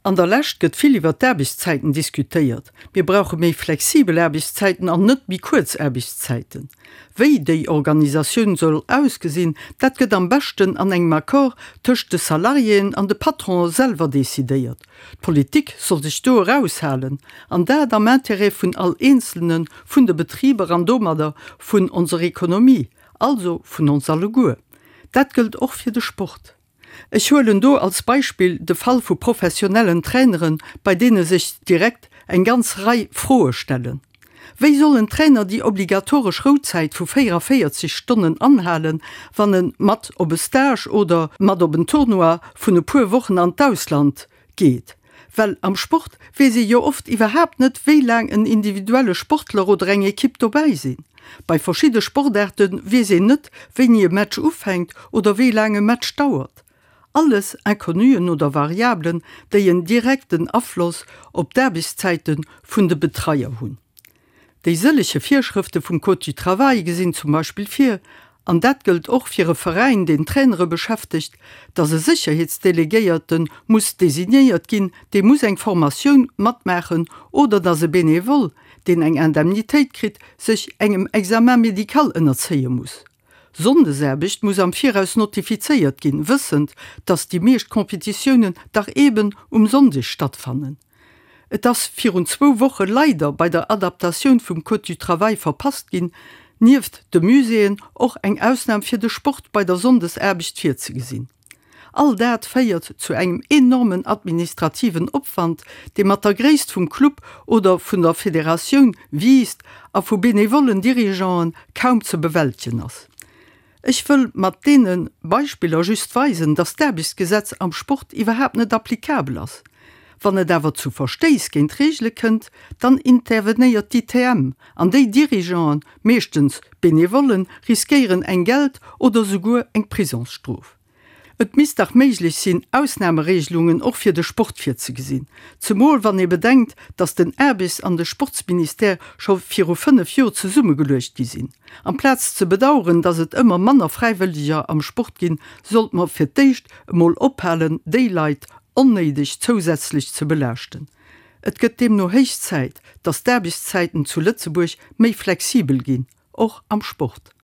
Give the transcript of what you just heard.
An der Lescht gëtt vill iwwer d'Aarbechtszäiten diskutéiert. Mir brauche méi flexibel Aarbechtszäiten an net méi kuerz Aarbechtszäiten. Wéi déi Organisatioun soll ausgesinn, dat gëtt am beschten an engem Accord tëscht de Salariéen an de Patronen selwer decidéiert. D'Politik soll sech do eraushalen, an dat am Intérêt vun all Eenzelne vun de Betriber an domadder vun onser Ekonomie, also vun ons alleguer. Dat gëllt och fir de Sport. Ech huelen do als Beispill de Fall vu professionellen Traineren, bei deene sech direkt eng ganz Rei Froe stellen. Wéi soll en Trainer déi obligatoresch Rouzäit vu 44 Stonnen anhalen, wann e mat op e Stage oder mat op en Tournoi vun e puer Wochen an d'Ausland geet? Well am Sport weess ee jo oft iwwerhaapt net, wéi laang en individuelle Sportler oder eng Ekipp dobäi sinn. Bei verschidde Sportaarte weess een net, wéini e Match ufänkt oder wéi laang e Match dauert. Alles Inconnuen oder Variabelen, déi en direkten Afloss op d'Aarbechtszäite vun de Betreier hunn. Déi sëllege Virschrëfte vum Code du Travail gesinn zum Beispill vir, an dat gëllt och fir e Veräin, deen Trainere beschäftegt, datt e Sécherheetsdelegéierte muss designéiert ginn, dee muss eng Formatioun matmaachen, oder datt e Benevole, deen eng Indemnitéit kritt, sech engem Examen médical ënnerzéie muss. Sonndesaarbecht muss am Viraus notifizéiert ginn, wëssend, datt déi meescht Competitiounen dach eben um Sonndeg stattfannen. Et ass virun zwou Woche leider bei der Adaptatioun vum Code du Travail verpasst ginn, nieft de Muséeën och eng Ausnam fir de Sport bei der Sonndesaarbecht virzegesinn. All dat féiert zu engem enormen administrativen Opwand, dee mat der Gréisst vum Club oder vun der Federatioun wiisst a vu benevollen Dirigeanten kaum ze bewältegen ass. Ech wëll mat deene Beispiller just weisen, dass d'Aarbechtsgesetz am Sport iwwerhaapt net applicabel ass. Wann et awer zu Verstéiss géint d'Reegele kënnt, dann intervenéiert d'ITM an déi Dirigeanten, meeschtens Benevollen, riskéieren eng Geld oder souguer eng Prisongsstrof. Et misst dach méiglech sinn, Ausnameregelungen och fir de Sport virzegesinn, zemol wann ee bedenkt, datt den Aarbechts an de Sportsministère scho viru 5 Jor zesummegeluecht gi sinn. Amplaz ze bedaueren, datt et ëmmer manner Fräiwëlleger am Sport ginn, sollt mer fir d'éischt emol ophalen, déi Leit onnéideg zousätzlech ze belaaschten. Et gëtt deemno héich Zäit, datt d'Aarbechtszäiten zu Lëtzebuerg méi flexibel ginn, och am Sport.